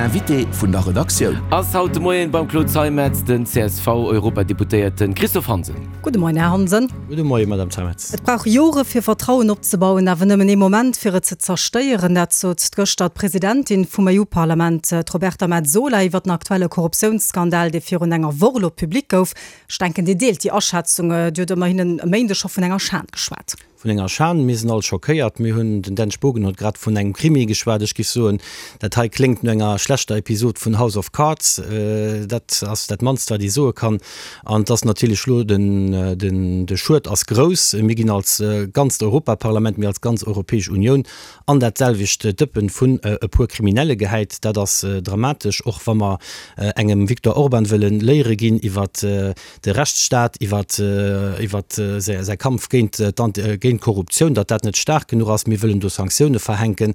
Invité vun der Redaktioun. Ass haut de Moien beim Claude Zeimetz den CSV-Europadeputéierten Christophe Hansen. Gudde Moien, Här Hansen. Gudde Moien, Madame Zeimetz. Et brauch Jore fir Vertrauen opzebauen, awer nëmmen ee Moment fir et ze zerstéieren. Dat sot gëschter d'Presidentin vum EU-Parlament, d'Roberta Metsola, iwwer den aktuelle Korruptiounsskandal, dee virun enger Woch elo public gouf. Ech denken, Dir deelt déi Aschätzung. Dir hutt ëmmerhin e Méindeg scho vun enger Schan geschwat. Vun enger Schan. Mir sinn all schockéiert. Mir hunn, den Dan Spogen huet grad vun engem Krimi geschwat. Ech géif soen, dat hei kléngt no enger schlechter Episod vun House of Cards. Dat ass dat mannst, wat ee soe kann. An et ass natierlech elo, den, den, de Schued ass grouss. Mir ginn als ganzt Europaparlament, mir als ganz Europäesch Unioun an dat selwecht Dëppen vun e puer Kriminelle gehäit. Dat ass dramatesch, och wa mer engem Viktor Orban wëlle Léiere ginn iwwer de Rechtsstaat, iwwer säi Kampf géint d'Korruptioun, datt dat net staark genuch ass. Mir wëllen do Sanktioune verhänken.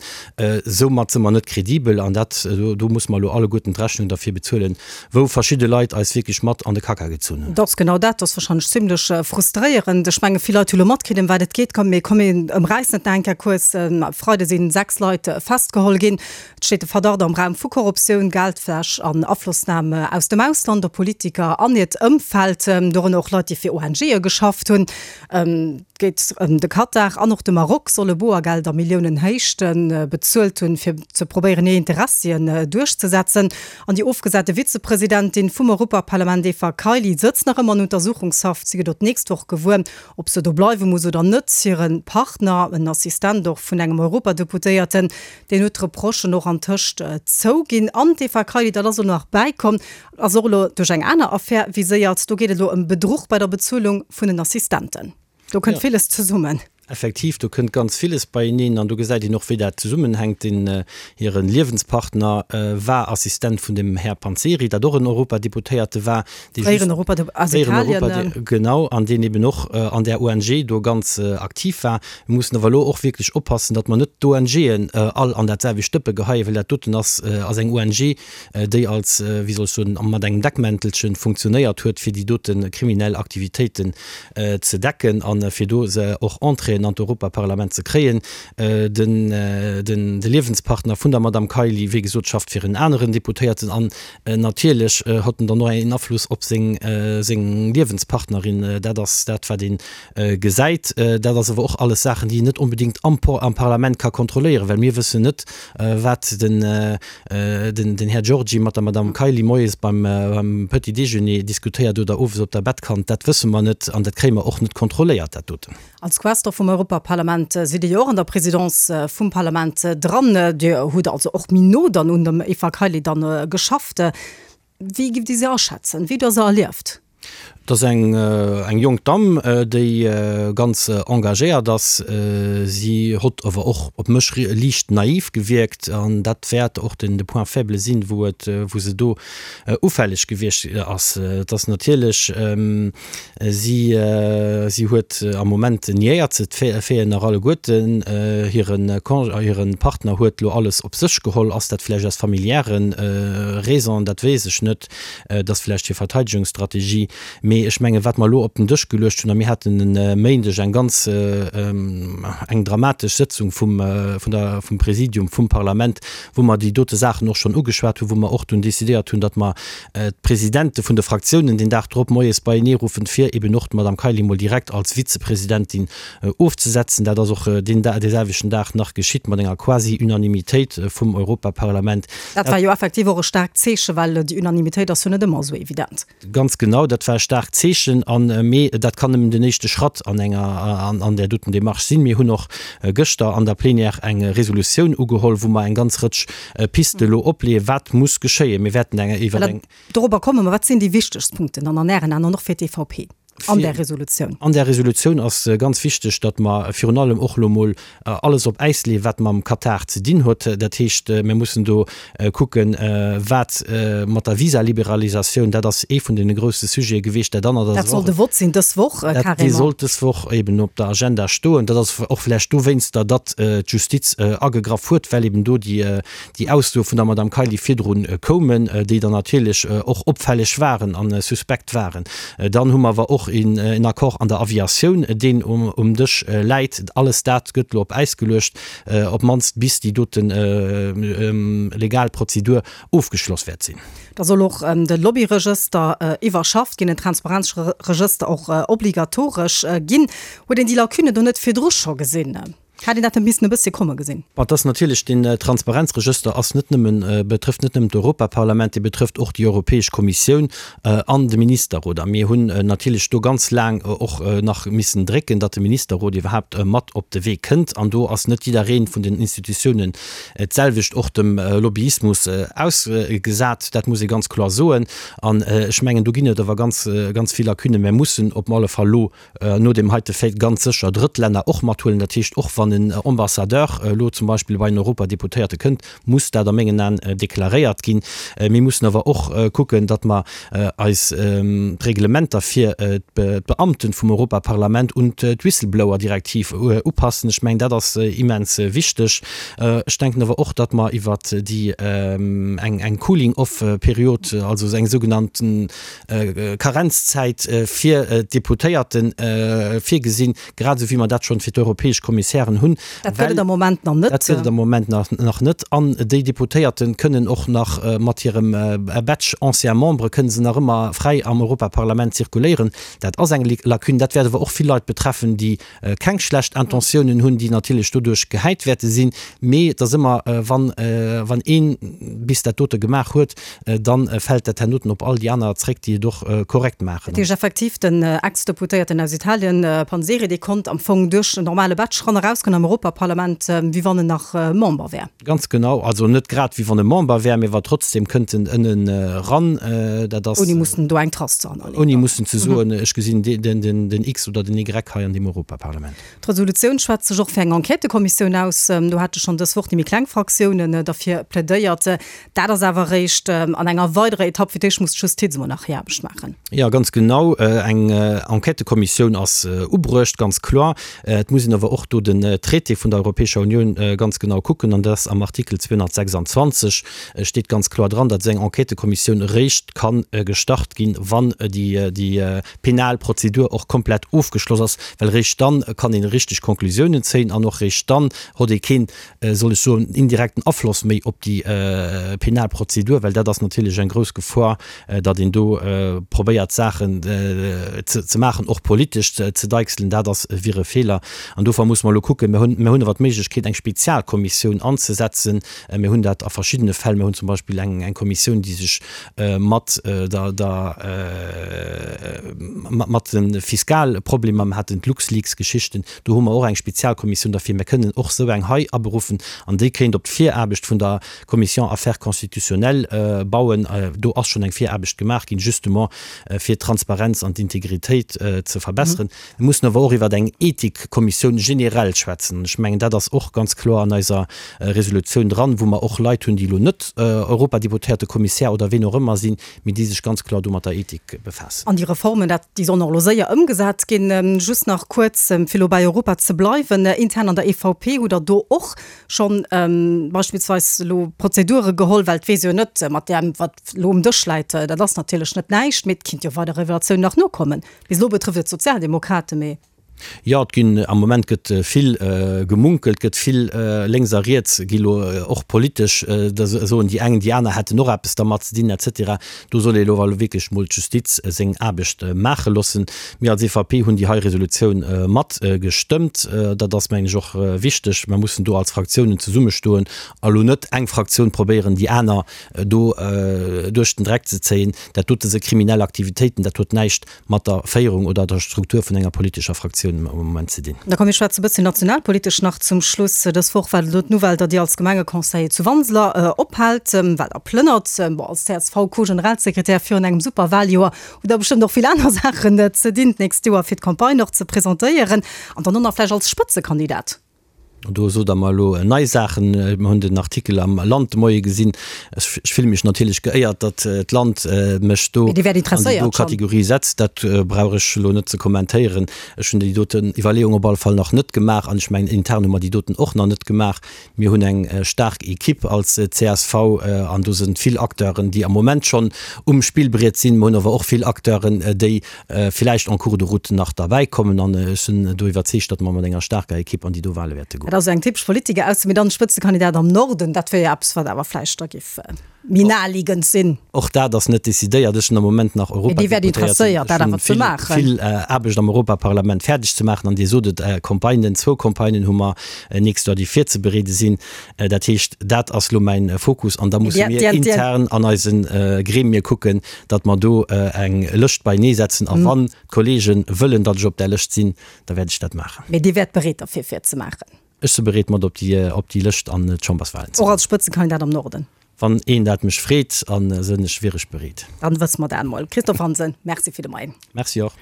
Soumat si mer net kredibel an dat, do musse mer elo alleguerten d'Rechnung derfir bezuelen, wou verschidde Leit eis wierklech mat an de Kacka gezunn hunn. Dat ass genau dat. Dat ass warscheinlech zimlech frustréierend. Ech menge vill Leit hu lo matkritt, ëm wat et geet. Komm, mir komm, mir ëmräissen et nach eng Kéier kuerz. E Freide si 6 Leit festgeholl ginn. Et steet de Verdacht am Raum vu Korruptioun, Geldwäsch an Aflossnam aus dem Ausland op Politiker an hiert Ëmfeld, dorënner och Leit, déi fir ONGe geschafft hunn. Et geet ëm de Katar an och de Maroc solle Boergeld a Milliounenhéichte bezuelt hunn, fir ze probéieren, hir Interessien duerchzesetzen. An déi ofgesate Vizepresidentin vum Europaparlament Eva Kaili sëtzt nach ëmmer an Untersuchungshaft. Si gëtt och d'nächst Woch gewuer, ob se do bleiwe muss oder net. Hire Partner, en Assistent och vun engem Europadeputéierten, deen huet d'Reprochen och antëscht zouginn. An d'Eva Kaili, dat ass elo nach bäikomm, ass och elo duerch eng aner Affär viséiert. Do geet et elo ëm Bedruch bei der Bezuelung vun den Assistenten. Do kënnt villes zesummen. Effektiv, do kënnt ganz villes beieneen an do gesäit een och, wéi dat zesummenhänkt. Deen hire Liewenspartner war Assistent vun dem Här Panzeri, dat och en Europadeputéierte war, dee just, fréieren Europadepu-, aus Italien. Genau, an deen eben och an där ONG do ganz aktiv war. Mir mussen awer elo och wierklech oppassen, datt mer net d'ONGen all an dat selwecht Dëppe geheien, well dat doten ass ass eng ONG, déi als, wéi soll ech soen, mat engem Deckmäntelchen funktionéiert huet, fir déi dote kriminell Aktivitéiten ze decken a fir do se och Entréeën an d'Europaparlament ze kréien. Den, de Liewenspartner vun der Madame Kaili, wéi gesot, schafft fir en aneren Deputéierten an natierlech hott en dann och een Afluss op seng, seng Liewenspartnerin. Dat ass dat, wat ee gesäit. Dat ass awer och alles Saachen, déi een net onbedéngt am, am Parlament ka kontrolléieren, well mir wëssen net, wat den, den Här Giorgi mat der Madame Kaili moies beim Petit déjeuner diskutéiert oder owes op der Bettkant, dat wësse mer net an dat kréie mer och net kontrolléiert, dat doten. Als Questor vum Europaparlament sidd Dir jo och an der Présidence vum Parlament dran. Dir hutt also och méi no dann un dem Eva Kaili dann geschafft. Wéi giff Dir se aschätzen? Wéi hutt Der se erlieft? Et ass eng eng jonk Damm, déi ganz engagéiert ass. Si hott awer och op mech liicht naiv gewierkt an dat wäert och den de Point faible sinn, wou et wou se do ufälleg gewiescht ass. Et ass natierlech, si si huet am Moment niéiert se d'Faiten nach alleguerten. Hire Con hire Partner huet lo alles op sech geholl. Ass dat vläicht aus familiäre Raisons, dat weess ech net. Et ass vläicht hir Verteidegungsstrategie. Mee ech mengen, wat mer elo op den Dësch geluecht hunn, a mir haten e Méindeg eng ganz, eng dramatesch Sëtzung vum, vun der, vum Präsidium vum Parlament, wou mer déi dote Saachen och schonn ugeschwat hunn, wou mer och dunn decidéiert hunn, datt mer d'Presidente vun de Fraktiounen deen Dag drop moies beieneeruffen, fir eben och d'Madame Kaili mol direkt als Vizepresidentin ofzesetzen. Dat ass och deen dee selwechten Dag nach geschitt mat enger Quasi-Unanimitéit vum Europaparlament. Dat war jo effektiv och e staarkt Zeechen, well déi Unanimitéit ass jo net ëmmer esou evident. Ganz genau, dat war e staarkt Zeechen. An, mee dat kann nëmmen den éischte Schratt an enger, an där doten Démarche sinn. Mir hunn och gëschter an der Plénière eng Resolutioun ugeholl, wou mer eng ganz Rëtsch Piste elo opleeën, wat muss geschéien. Mir wäerten eng iwwer eng. Dorobber komme mer. Wat sinn déi wichtegst Punkten dann an Ären Aen an och fir d'EVP? An där Resolutioun. An där Resolutioun ass ganz wichteg, datt mer virun allem och elo mol alles op Äis leeën, wat mam Katar ze dinn huet. Dat heescht, mir mussen do kucken, wat mat der Visaliberalisatioun, dat ass ee vun deene grousse Sujete gewiescht. Dat anert ass Dat soll de Vott sinn dës Woch, carrément. Dee sollt dës Woch eben op der Agenda stoen. Dat ass och vläicht dowéinster, datt d'Justiz agegraff huet, well eben do déi déi Aussoe vun der Madame Kaili virdru koumen, déi dann natierlech och opfälleg waren a suspekt waren. Dann hu mer awer och. och een Accord an der Aviatioun, deen um Dësch läit. Alles dat gëtt elo op Äis geluecht, op d'mannst bis déi dote legal Prozedur ofgeschloss wäert sinn. Da soll och de Lobbyregëster iwwerschafft ginn, en Transparenzregëster och obligatoresch ginn. Huet een déi Lacune do net virdru scho gesinn? Hätt een dat net missen e bëssche komme gesinn? Bon, et ass natierlech, deen Transparenzregëster ass net nëmmen, betrëfft net nëmmen d'Europaparlament, dee betrëfft och déi Europäesch Kommissioun an de Ministerrot. A mir hunn natierlech do ganz laang och nach missen drécken, datt de Ministerrot iwwerhaapt mat op de Wee kënnt. An do ass net jidderee vun den Institutiounen d'selwecht och dem Lobbyismus ausgesat. Dat muss ee ganz kloer soen. An ech mengen, do ginn et awer ganz, ganz vill Lacunen. Mir mussen op alle Fall elo no deem heite Fait ganz sécher Drëttlänner och mathuelen. Dat heescht, och wann en Ambassadeur elo zum Beispill bei en Europadeputéierte kënnt, muss dat a mengen Aen deklaréiert ginn. Mir mussen awer och kucken, datt mer eis d'Reglementer fir d'Beamten vum Europaparlament un d'Whistleblower-Direktiv upassen. Ech mengen, dat ass immens wichteg. Ech denken awer och, datt mer iwwert déi eng Cooling-off-Period, also eng sougenannten Karenzzäit fir d'Deputéierte virgesinn, grad esou wéi mer dat schonn fir d'europäesch Kommissären hunn. Dat gëtt et am Moment nach net. Dat gëtt et am Moment nach net. An déi Deputéierte kënnen och nach mat hirem Badge ancien membre kënnen se nach ëmmer fräi am Europaparlament zirkuléieren. Dat ass eng Lacune. Dat wäert awer och vill Leit betreffen, déi keng schlecht Intentiounen hunn, déi natierlech doduerch gehäit wäerte sinn, mee et ass ëmmer, wann, wann een bis dat dote gemaach huet, da fält dat hernoten op all déi aner zréck, déi et och korrekt maachen. Dat heescht effektiv, den Ex-Deputéierten aus Italien, Panzeri, dee konnt am Fong duerch en normale Badge ran erausgoen am Europaparlament, wéi wann en nach Member wär. Ganz genau, also net grad wéi wann e Member wär, mee wa trotzdem kënnt en ënnen eran. Dat ass. Ouni mussen do eng Trace ze hannerleeën. Ouni mussen ze soen, ech gesinn den X oder den Y hei an deem Europaparlament. D'Resolutioun schwätzt sech och fir eng Enquêtëkommissioun aus. Do hate schonn dës Woch déi méi kleng Fraktiounen derfir plädéiert. Dat ass awer eréischt an enger weiderer Etapp. Fir d'éischt muss d'Justiz emol nach hir Aarbecht maachen. Jo, ganz genau. Eng Enquêtëkommissioun ass ubruecht, ganz kloer. Et muss een awer och do den Traité vun der Europäescher Unioun ganz genau kucken, an dat ass am Artikel 226 steet ganz kloer dran, datt esou eng Enquêtëkommissioun eréischt ka gestart ginn, wann déi penal Prozedur och komplett ofgeschloss ass, well eréischt dann kann een richteg Konklusiounen zéien an och eréischt dann hott ee keen, soll ech soen, indirekten Afloss méi op déi penal Prozedur, well dat ass natierlech eng grouss Gefor, datt een do probéiert Saachen ze maachen, och politesch ze deichselen, dat ass wier e Feeler. An dofir musse mer elo kucken, mir hunn, mir hunn awer d'Méiglechkeet eng Spezialkommissioun anzesetzen, mir hunn dat a verschiddene Fäll, mir hunn zum Beispill eng eng Kommissioun, déi sech mat der der mat de Fiskalproblemer, mir haten d'LuxLeaks-Geschichten, do hu mer och eng Spezialkommissioun derfir, mir kënnen och esou eng hei aberuffen an déi kéint op d'Viraarbecht vun der Commission Affaires constitutionnelles bauen. Do ass schonn eng Viraarbecht gemaach ginn, justement fir d'Transparenz an d'Integritéit ze verbesseren. Mir mussen awer och iwwer eng Ethikkommissioun generell schwätzen. An ech mengen, dat ass och ganz kloer an eiser Resolutioun dran, wou mer och Leit hunn, déi elo net Europadeputéierte, Kommissär oder ween och ëmmer sinn, mee déi sech ganz kloer do mat der Ethik befaassen. An déi Reformen, dat, déi sollen och elo séier ëmgesat ginn. Just nach kuerz, fir elo bei Europa ze bleiwen, Intern an der EVP hutt Der do och schonn beispillsweis elo Prozedure geholl, well et weess jo net, mat deem wat elo um Dësch läit, dat ass natierlech net näischt, mee et kinnt jo weider Revelatiounen nach nokommen. Bis elo betrëfft et d'Sozialdemokraten, mee. Jo, et ginn, am Moment gëtt vill gemunkelt, gëtt vill lénks a riets gi lo och politesch, da soen déi eng, déi aner hätten och eppes dermat ze dinn et cetera. Do soll ee elo awer wierklech mol d'Justiz seng Aarbecht maache loossen. Mir als EVP hunn déi hei Resolutioun mat gestëmmt. Dat ass, mengen ech, och wichteg. Mer mussen do als Fraktiounen zesummestoen a lo net eng Fraktioun probéieren, déi aner do duerch den Dreck ze zéien. Dat dote si kriminell Aktivitéiten, dat huet näischt mat der Féierung oder der Struktur vun enger politescher Fraktioun am Moment ze dinn. Da komm mir schwätze e bësschen nationalpolitesch nach zum Schluss. Dës Woch war elo d'Nouvelle, datt Dir als Gemengeconseiller zu Wanseler ophaalt, well Der plënnert. Bon, als CSV-Co-Generalsekretär virun engem super Wahljoer hutt Der bestëmmt och vill aner Saachen ze dinn d'nächst Joer, fir d'Campagne och ze presentéieren an dann och nach vläicht als Spëtzekandidat. Do sot Der mer elo nei Saachen. Mer hunn den Artikel am Land de Moie gesinn. Ech fille mech natierlech geéiert, datt d'Land mech do an déi do Kategorie setzt. Dat brauch ech elo net ze kommentéieren. Ech hunn déi doten Iwwerleeung op alle Fall nach net gemaach an ech mengen, intern hu mer déi doten och nach net gemaach. Mir hunn eng staark Equipe als csv an do sinn vill Acteuren, déi am Moment schonn um Spillbriet sinn. Mer hunn awer och vill Acteuren, déi villäicht en cours de route nach derbäi kommen an ech sinn do iwwerzeegt, datt mer mat enger staarker Equipe an déi do Wahle wäerte goen. Dat ass eng typesch Politiker Ausso, mee dann Spëtzekandidat am Norden, dat wier jo eppes, wat awer vläicht da giff méi naheliegend sinn. Och dat ass net decidéiert. Ech sinn am Moment nach Mee Dir wäert Europadeputéierten. interesséiert, dat Ech hunn awer ze vill, maachen. vill Aarbecht am Europaparlament fäerdeg ze maachen an Dir sot et, Campagnen, zwou Campagnen hu mer nächst Joer, déi virzebereede sinn. Dat heescht, dat ass lo mäin Fokus an da musse mir intern an eise Gremie kucken, datt mer do eng Lëscht beinee setzen. A wann d'Kollege wëllen, datt ech op där Lëscht sinn, da wäert ech dat maachen. Mee Dir wäert bereet derfir, fir et ze maachen? Ech si bereet, mat op déi Lëscht an d'Chamberswahlen ze goen. Och als Spëtzekandidat am Norden? Wann een dat mech freet, a sënn ech, wier ech bereet. Dann wësse mer dat emol. Christophe Hansen, Merci fir de Moien. Merci och.